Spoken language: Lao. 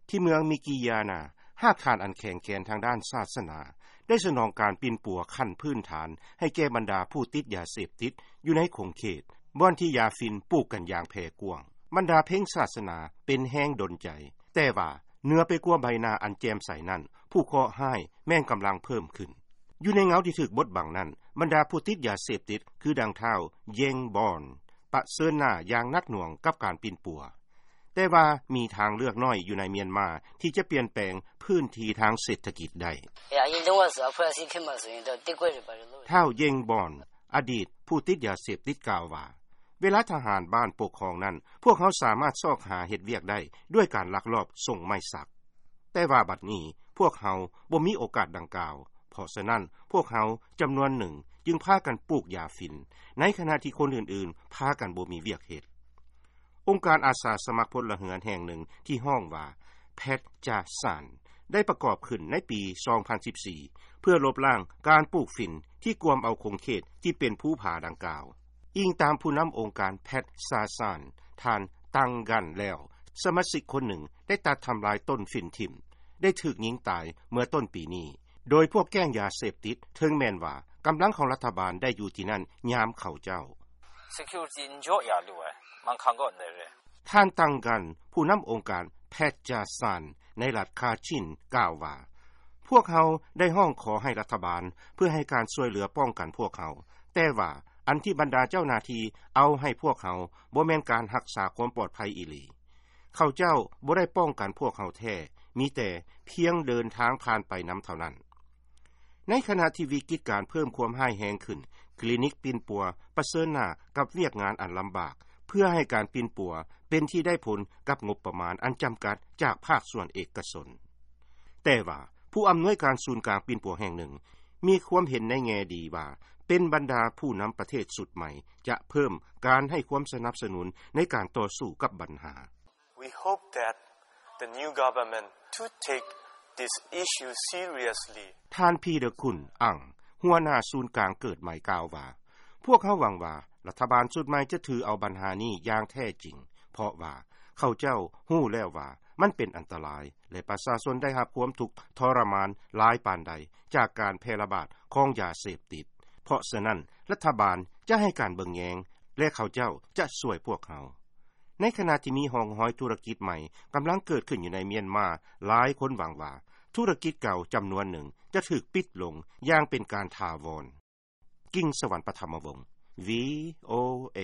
ທີ່ເມືອງມິກິຢານາ ຮາກຖານອັນແຂງແກ່ນທາງດ້ານສາສະໜາ ໄດ້ສະໜອງການປິ່ນປົວຂັ້ນພື້ນຖານໃຫ້ແກ່ບັນດາຜູ້ຕິດຢາເສບຕິດຢູ່ໃນຂົງເຂດ ບ່ອນທີ່ຢາຝິ່ນປູກກັນຢ່າງແຜ່ກວ້າງ. ບັນດາເພັງສາສະໜາເປັນແຮງດົນໃຈ, ແຕ່ວ່າເໜືອໄປກວ່າໃບໜ້າອັນແຈ່ມໃສນັ້ນ, ຜູ້ເຄາະຮ້າຍແມ່ນກຳລັງເພີ່ມຂຶ້ນ. ຢູ່ໃນເງົາທີ່ຖືກບົດບັງນັ້ນ, ບັນດາຜູ້ຕິດຢາເສບຕິດ ຄືດັ່ງທ້າວ ເຢງ ບອນ ປະເຊີນໜ້າຢ່າງໜັກໜ່ວງກັບການປິ່ນປົວ. ແຕ່ວ່າມີທາງເລືອກໜ້ອຍຢູ່ໃນມຽນມາທີ່ຈະປ່ຽນແປງພື້ນທີ່ທາງເສດຖະກິດໄດ້. ທ້າວ ເຢງ ບອນ ອະດີດຜູ້ຕິດຢາເສບຕິດກ່າວວ່າ, ເວລາທະຫານບ້ານປົກຄອງນັ້ນ, ພວກເຮົາສາມາດຊອກຫາເຮັດວຽກໄດ້ດ້ວຍການລັກລອບສົ່ງໄມ້ສັກ. ແຕ່ວ່າບັດນີ້ພວກເຮົາບໍ່ມີໂອກາດດັ່ງກ່າວ, ເພາະສະນັ້ນພວກເຮົາຈຳນວນໜຶ່ງຈຶ່ງພາກັນປູກຢາຝິ່ນ, ໃນຂະນະທີ່ຄົນອື່ນໆພາກັນບໍ່ມີວຽກເຮັດ. ອົງການອາສາສະໝັກພົນລະເຮືອນແຫ່ງໜຶ່ງທີ່ຮ້ອງວ່າ ແພັດຈາຊານ ໄດ້ປະກອບຂຶ້ນໃນປີສອງພັນສິບສີ່ ເພື່ອລົບລ້າງການປູກຝິ່ນທີ່ກວມເອົາຂົງເຂດທີ່ເປັນພູຜາດັ່ງກ່າວ. ອີງຕາມຜູ້ນຳອົງການແພັດຈາຊານ ທ່ານ ຕັງ ກັນ ແລ້ວ, ສະມາຊິກຄົນໜຶ່ງໄດ້ຕັດທຳລາຍຕົ້ນຝິ່ນຖິ້ມ, ໄດ້ຖືກຍິງຕາຍເມື່ອຕົ້ນປີນີ້, ໂດຍພວກແກ້ງຢາເສບຕິດ, ເຖິງແມ່ນວ່າກຳລັງຂອງລັດຖະບານໄດ້ຢູ່ທີ່ນັ້ນຍາມເຂົາເຈົ້າ. ທ່ານ ຕັງ ກັນ ຜູ້ນຳອົງການແພັດຈາຊານ ໃນລັດຄາຊິນ ກ່າວວ່າ, ພວກເຮົາໄດ້ຮ້ອງຂໍໃຫ້ລັດຖະບານເພື່ອໃຫ້ການຊ່ວຍເຫຼືອປ້ອງກັນພວກເຮົາ, ແຕ່ວ່າອັນທີ່ບັນດາເຈົ້າໜ້າທີ່ເອົາໃຫ້ພວກເຮົາບໍ່ແມ່ນການຮັກສາຄວາມປອດໄພອີ່ຫຼີ. ເຂົາເຈົ້າບໍ່ໄດ້ປ້ອງກັນພວກເຮົາແທ້, ມີແຕ່ພຽງເດີນທາງຜ່ານໄປນຳເທົ່ານັ້ນ. ໃນຂະນະທີ່ວິກິດການເພີ່ມຄວາມຮ້າຍແຮງຂຶ້ນ, ຄລີນິກປິ່ນປົວປະເຊີນໜ້າກັບວຽກງານອັນລຳບາກ ເພື່ອໃຫ້ການປິ່ນປົວເປັນທີ່ໄດ້ຜົນກັບງົບປະມານອັນຈຳກັດຈາກພາກສ່ວນເອກະຊົນ. ແຕ່ວ່າຜູ້ອຳນວຍການສູນກາງປິ່ນປົວແຫ່ງໜຶ່ງ ມີຄວາມເຫັນໃນແງ່ດີວ່າ ເປັນບັນດາຜູ້ນຳປະເທດຊຸດໃໝ່ຈະເພີ່ມການໃຫ້ຄວາມສະໜັບສະໜູນໃນການຕໍ່ສູ້ກັບບັນຫາ. We hope that the new government to take this issue seriously. ທ່ານ ພີເດີ ຄຸນ ອັງ ຫົວໜ້າສູນກາງເກີດໃໝ່ກ່າວວ່າ, ພວກເຮົາຫວັງວ່າລັດຖະບານຊຸດໃໝ່ຈະຖືເອົາບັນຫານີ້ຢ່າງແທ້ຈິງ, ເພາະວ່າເຂົາເຈົ້າຮູ້ແລ້ວວ່າມັນເປັນອັນຕະລາຍ ແລະ ປະຊາຊົນໄດ້ຮັບຄວາມທຸກທໍລະມານຫຼາຍປານໃດຈາກການແຜ່ລະບາດຂອງຢາເສບຕິດ. ເພາະສະນັ້ນ, ລັດຖະບານຈະໃຫ້ການເບິ່ງແຍງ ແລະ ເຂົາເຈົ້າຈະຊ່ວຍພວກເຮົາ. ໃນຂະນະທີ່ມີຮ່ອງຮອຍທຸລະກິດໃໝ່ກຳລັງເກີດຂຶ້ນຢູ່ໃນມຽນມາ, ຫຼາຍຄົນຫວັງວ່າທຸລະກິດເກົ່າຈຳນວນໜຶ່ງຈະຖືກປິດລົງຢ່າງເປັນການຖາວອນ. ກິງສະຫວັນ ປະທຳມະວົງ ວີໂອເອ.